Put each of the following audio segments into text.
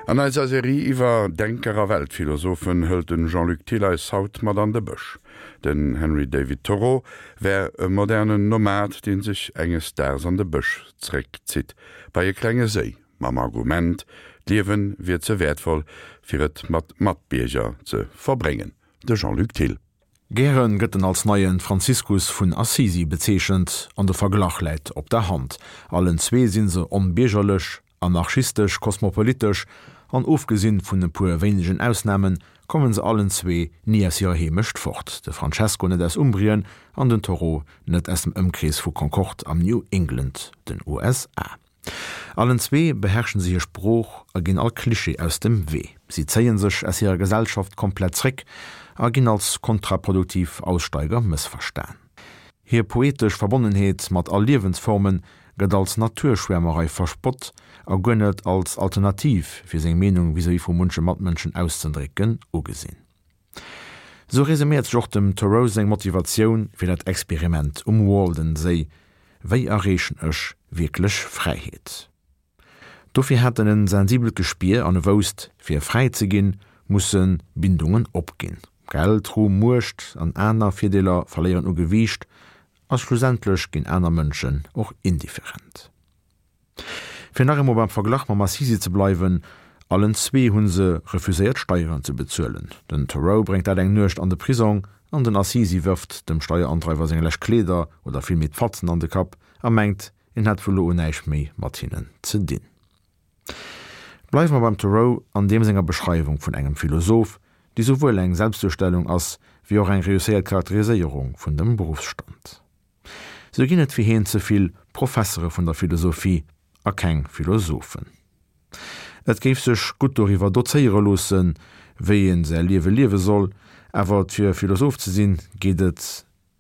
An eiser Serie iwwer Denker a Weltphilosophen hëlt den Jean-Luc Thill eis haut mat an de Bësch. Den Henry David Thoreau wär e modernen Nomad, deen sech enges Daags an de Bësch zréckzitt, bei e klenge Séi, mam Argument, d'Liewe wier ze wäertvoll, fir et mat Matbierger ze verbréngen. De Jean-Luc Thill. Gären gëtt en als neien Franziskus vun Assisi bezeechent, an de Verglach läit op der Hand. Allen zwee sinn se onbiergerlech, anarchistesch, kosmopolitesch, an ofgesinn vun e puer wéinegen Ausnamen, kommen se allen zwee ni aus hirer Heemecht fort, de Francesco net aus Umbrien an den Thoreau net aus dem Ëmkrees vu Concord am New England, den USA. Allen zwee beherrschen se hir Sprooch a ginn all Klischee aus dem Wee. Si zéien sech aus hirer Gesellschaft komplett zréck a ginn als kontraproduktiv Aussteiger mëssverstan. Hir poetesch Verbonnenheet mat all Liewensforme gëtt als Naturschwäermerei verspott a guer net als Alternativ fir seng Meenung vis-à-vis vu munche Matmënschen auszendrécken ugesinn. Sou resuméiert sech och dem Thoreau seng Motivatioun fir dat Experiment um Walden-Séi, Wéi erreechen ech wierklech Fräiheet? Dofir hat en en sensibelt Gespier an e wousst, fir fräi ze ginn, musse Bindungen opginn. Geld, Ruhm, Muecht an aner Virdeeler verléieren u Gewiicht a schlussendlech ginn aner Mënschen och indifferent. Fir nach eemol beim Verglach mam Assisi ze bleiwen, Allen zwee hu se refuséiert Steieren ze bezuelen. Den Thoreau bréngt dat eng Nuecht an de Prisong an den Assisi wërft dem Steierandreiwer seng lescht Kleeder oder villméi d'Fatzen an de Kapp a mengt, en hätt vu lo un näischt méi mat hinnen ze dinn. Bleiwe mer beim Thoreau an deem senger Beschreiwung vun engem Philosoph, déi souwuel eng Selbstduerstellung ass, wéi och eng reusséiert Charakteriséierung vun dem Beruffsstand. Sou ginn et fir hien ze vill Professere vun der Philosophie a keng Philosophen. Et géif sech gutt doriwwer dozéiere loossen, wéi ee säi Liewe liewe soll, awer fir Philosoph ze sinn, geet et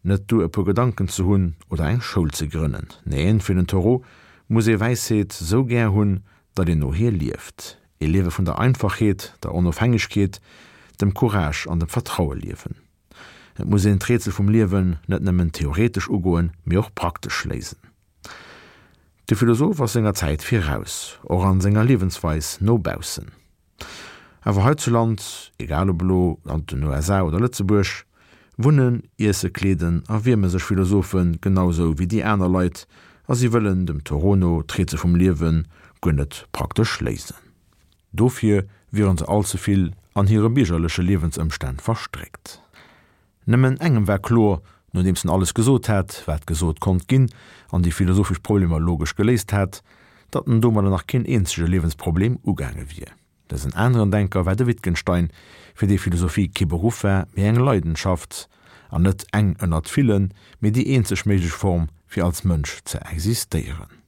net duer e puer Gedanken ze hunn oder eng Schoul ze grënnen. Neen, fir den Thoreau muss ee Wäisheet sou gär hunn, datt een no hir lieft. Ee Liewe vun der Einfachheet, der Onofhängegkeet, dem Courage an dem Vertraue liewen. Et muss een d'Rätsel vum Liewen net nëmmen theoretesch ugoen, mee och praktesch léisen. De Philosoph ass senger Zäit viraus, och an senger Liewensweis no baussen. Awer heizuland, egal ob elo an den USA oder Lëtzebuerg, wunnen, iesse, kleeden a wierme sech Philosophe genau sou wéi déi aner Leit a si wëllen dem Thoreau no d'Rätsel vum Liewe guer net praktesch léisen. Dofir wieren se all ze vill an hire biergerleche Liewensëmstänn verstréckt. Nëmmen engem war kloer, nodeems en alles gesot hat, wat gesot konnt ginn, an déi philosophesch Problemer logesch geléist hat, datt en domadder nach keen eenzege Liewensproblem ugaange wier. Dësen aneren Denker war de Wittgenstein, fir dee Philosophie kee Beruff war, mee eng Leidenschaft, an net eng ënnert villen, mee déi eenzeg méiglech Form, fir als Mënsch ze existéieren.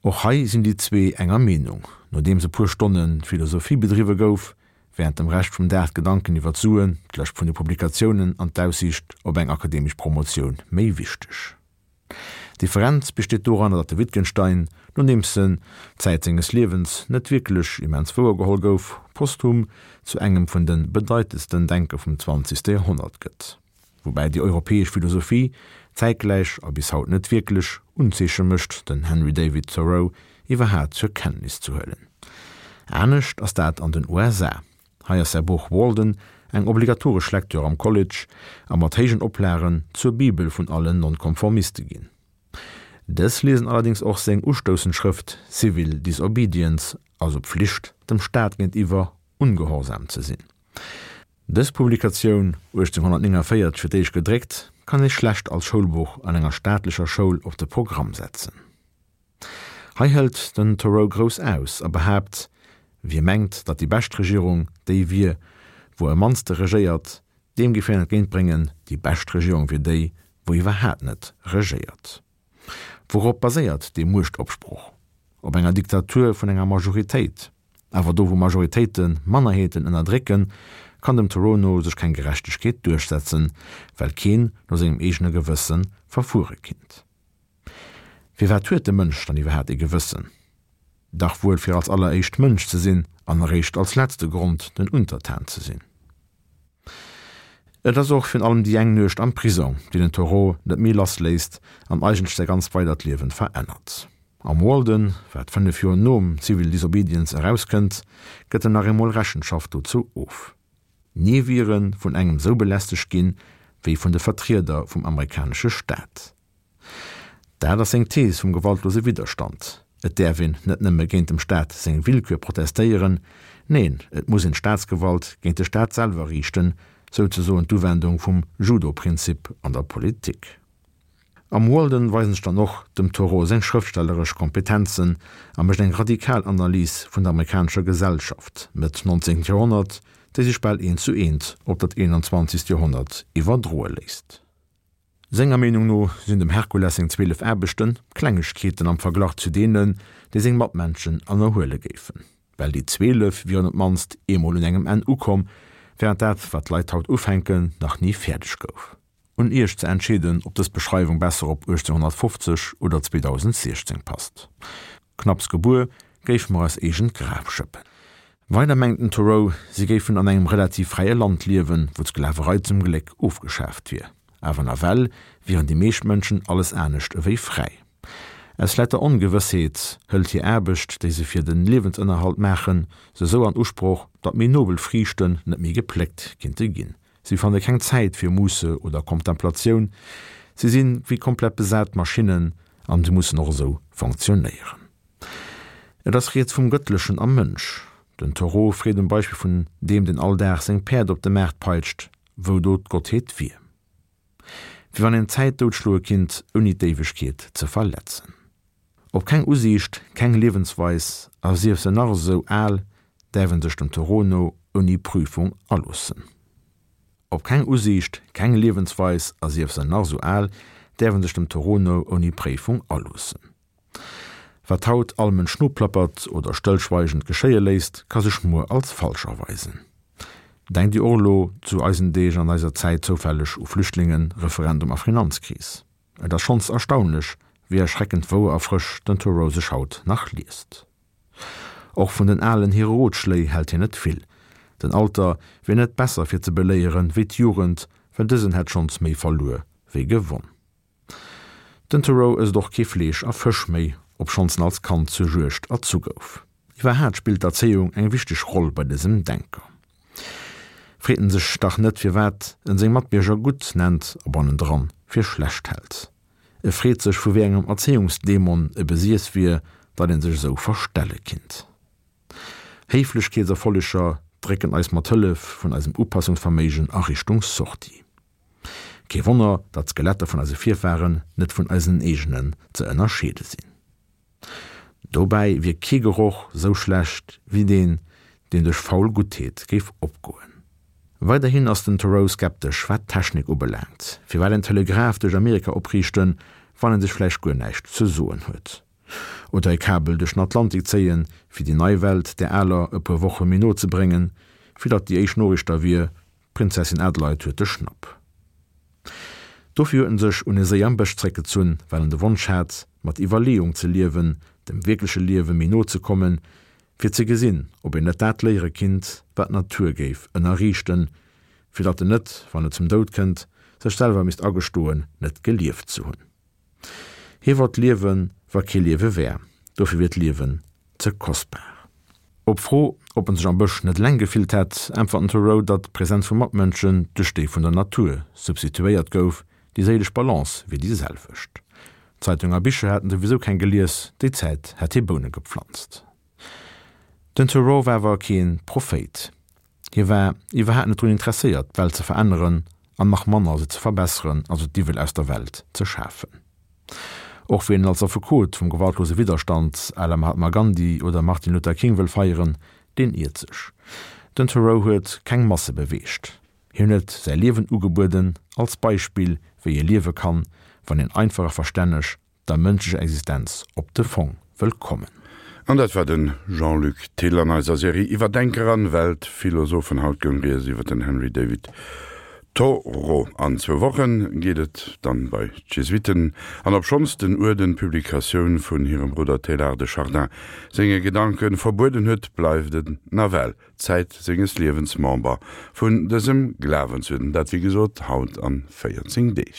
Och hei sinn déi zwee enger Meenung. Nodeems e puer Stonne Philosophie bedriwwe gouf, wärend dem Rescht vum Dag d'Gedanken iwwer d'Suen, d'Lëscht vun de Publikatiounen an d'Aussiicht op eng akademesch Promotioun méi wichteg. D'Differenz besteet doranner, datt de Wittgenstein, nodeems en Zäit senges Liewens net wierklech immens wouergeholl gouf, posthum zu engem vun de bedeitendsten Denker vum zwanzegste Joerhonnert gëtt. Woubäi déi europäesch Philosophie zäitgläich a bis haut net wierklech Unzeeche mécht, den Henry David Thoreau iwwerhaat zur Kenntnis ze huelen. Anescht ass dat an den USA. Hei ass säi Buch Walden eng obligatoresch Lektür am College a mat héijen Oplagen zur Bibel vun allen Nonkonformiste ginn. Dës liesen allerdéngs och seng ustoussend Schrëft Civil Disobedience, also Pflicht, dem Staat géintiwwer ungehorsam ze sinn. Dës Publikatioun, 1849 fir d'éischt gedréckt, kann ee schlecht als Schoulbuch an enger staatlecher Schoul op de Programm setzen. Hei hëlt den Thoreau grouss aus a behaapt, Wie mengt, datt déi bescht Regierung déi wier, wou am mannste regéiert, deem géif hien entgéintbréngen, déi bescht Regierung wier déi, wou iwwerhaat net regéiert. Wourop baséiert dee Muechtopsproch? Op enger Diktatur vun enger Majoritéit. Awer do wou Majoritéite Mannerheeten ënnerdrécken, kann dem Thoreau no sech keng Gerechtegkeet duerchsetzen, well keen no sengem eegene Gewësse verfuere kinnt. Firwat huet de Mënsch dann iwwerhaat ee Gewëssen? Dach wuel fir als alleréischt Mënsch ze sinn an eréischt als letzte Grond den Untertan ze sinn. Et ass och virun allem déi eng Nuecht am Prisong, déi den Thoreau net méi lass léisst an eigentlech säi ganz weidert Liewen verännert. Am Walden, wat 5 Joer nom Civil Disobedience erauskënnt, gëtt en nach eemol Rechenschaft dozou of. Ni wier e vun engem sou belästegt ginn, wéi vun de Vertrieder vum amerikanesche Staat. Dat ass seng Thees vum gewaltlose Widderstand, Et däerf een net nëmme géint dem Staat seng Willkür protestéieren, neen, et muss een d'Staatsgewalt géint de Staat selwer riichten, souzesoen d'Uwendung vum Judo-Prinzip an der Politik. Am Walden weisen sech dann och dem Thoreau seng schrëftstelleresch Kompetenzen a mécht eng radikal Analys vun der amerikanescher Gesellschaft Mëtt 19. Joerhonnert, déi sech bal eent zu eent op dat 21. Joerhonnert iwwerdroe léisst. Senger Meenung no sinn dem Herkules seng 12 Aarbechte Klengegkeeten am Verglach zu deenen, déi seng Matmenschen ënnerhuele géifen. Well déi 12 wieren op d'mannst eemol un engem Enn ukomm, wärend dat, wat d'Leit haut ufänken, nach ni fäerdeg gouf. Un Iech ze entscheeden, ob dës Beschreiwung besser op 1850 oder 2016 passt. Knapps gebuer, géife mer eis eegent Graf schëppen. Weider mengt den Thoreau, si géifen an engem relativ fräie Land liewen, wou d'Sklaverei zum Gléck ofgeschaaft wier. Awer nawell wieren déi meescht Mënschen alles anescht ewéi fräi. Aus lauter Ongewëssheet hëlt hir Aarbecht, déi se fir de Liewensënnerhalt maachen, se sou an Usproch, datt méi nobel Friichten net méi gepléckt kinnte ginn. Si fanne keng Zäit fir Musse oder Kontemplatioun, si si wéi komplett besat Maschinnen an si mussen och esou fonctionnéieren. Et ass rieds vum Gëttlechen am Mënsch. Den Thoreau freet um Beispill vun deem, deen all Dag seng Päerd op de Maart peitscht, wou do d'Gottheet wier. Wéi wann een d'Zäit doutschloe kinnt, ouni d'Éiwegkeet ze verletzen. Op keng Usiicht, keng Liewensweis, a sief se nach esou al, däerf en sech dem Thoreau no ouni Prüfung aloossen. Op keng Usiicht, keng Liewensweis, a sief se nach esou al, däerf en sech dem Thoreau no ouni Préifung aloossen. Wat haut all Mënsch noplappert oder stëllschweigend geschéie léisst, ka sech muer als falsch erweisen. Denkt Dir och elo zu eisen Deeg an eiser Zäit zoufälleg u Flüchtlingen, Referendum a Finanzkris? Et ass schonns erstaunlech, wéi erschreckend wouer a frësch den Thoreau sech haut nach liest. Och vun den Alen hire Rotschléi hält hien net vill. Den Alter wier net besser fir ze beléieren wéi d'Jugend, well dësen hätt schonns méi verluer wéi gewonn. Den Thoreau ësst och kee Fleesch a Fësch méi, obschonns en als Kand zur Juegd erzu gouf. Iwwerhaat spillt d'Erzéiung eng wichteg Roll bei dësem Denker. Freet en sech dach net firwat en seng Matbierger gutt nennt a bannendran fir schlecht hält. E freet sech vu wéi engem Erzéiungsdämon e besiess wier, datt een sech esou verstelle kinnt. Héiflechkeetserfolleger drécken eis mat Hëllef vun eisem Upassungsverméigen a Richtung Sortie. Kee Wonner, datt d'Skeletter vun eise Virfahren net vun eisen eegenen ze ënnerscheede sinn. Dobäi wier kee Geroch sou schlecht wéi deen, deen duerch faul Guttheet géif opgoen. Weiderhin ass den Thoreau skeptesch wat d'Technik ubelaangt. Firwat en Telegraph duerch Amerika opriichten, wann en sech vläicht guer näischt ze soen huet? Oder e Kabel duerch den Atlantik zéien, fir déi nei Welt där aler e puer Woche méi no ze bréngen, fir datt déi éischt Noriicht da wier, D'Prinzessin Adelheid huet de Schnapp. Dofir huet en sech un e Séi am Bësch zréckgezunn, well en de Wonsch hat, mat Iwwerleeung ze liewen, dem wierkleche Liewe méi no ze kommen, fir ze gesinn, ob een net dat léiere kinnt, wat d'Natur géif ënnerriichten, fir datt en net, wann et zum Doud kënnt, sech selwer misst agestoen, net gelieft ze hunn. Hie wollt liewen, wa kee Liewe wär, dofir wier d'Liewen ze kostbar. Op d'Fro, ob en sech am Bësch net eleng gefillt hätt, äntwert den Thoreau, datt d'Presenz vu Matmënschen duerch déi vun der Natur substituéiert gouf, déi séilesch Balance wier déi selwecht. Zeitung a Bicher hätt en souwisou keng gelies, déi Zäit hätt hie Boune gepflanzt. Den Thoreau war awer kee Prophéit. Hie war iwwerhaapt net drun interesséiert, d'Welt ze veränneren an nach manner se ze verbesseren, also d'Iwwel aus der Welt ze schafen. Och wien en als Affekot vum gewaltlose Widderstand à la Mahatma Gandhi oder Martin Luther King wëll feieren, deen iert sech. Den Thoreau huet keng Masse beweegt. Hien huet säi Liewen ugebueden als Beispill, wéi ee liewe kann, wann een einfach a verstänneg der mënschlecher Existenz op de Fong wëll kommen. An dat war de Jean-Luc Thill an eiser Serie iwwer Denker an Weltphilosophen. Haut goung rieds iwwer den Henry David Thoreau. An zwou Wochen geet et dann bei d'Jesuiten. An obschonns den Uerden d'Publikatioun vun hirem Brudder Teilhard de Chardin senge Gedanken verbueden huet, bleift en nawell Zäit senges Liewens Member vun dësem Glawensuerden. Dat wéi gesot haut an 14 Deeg.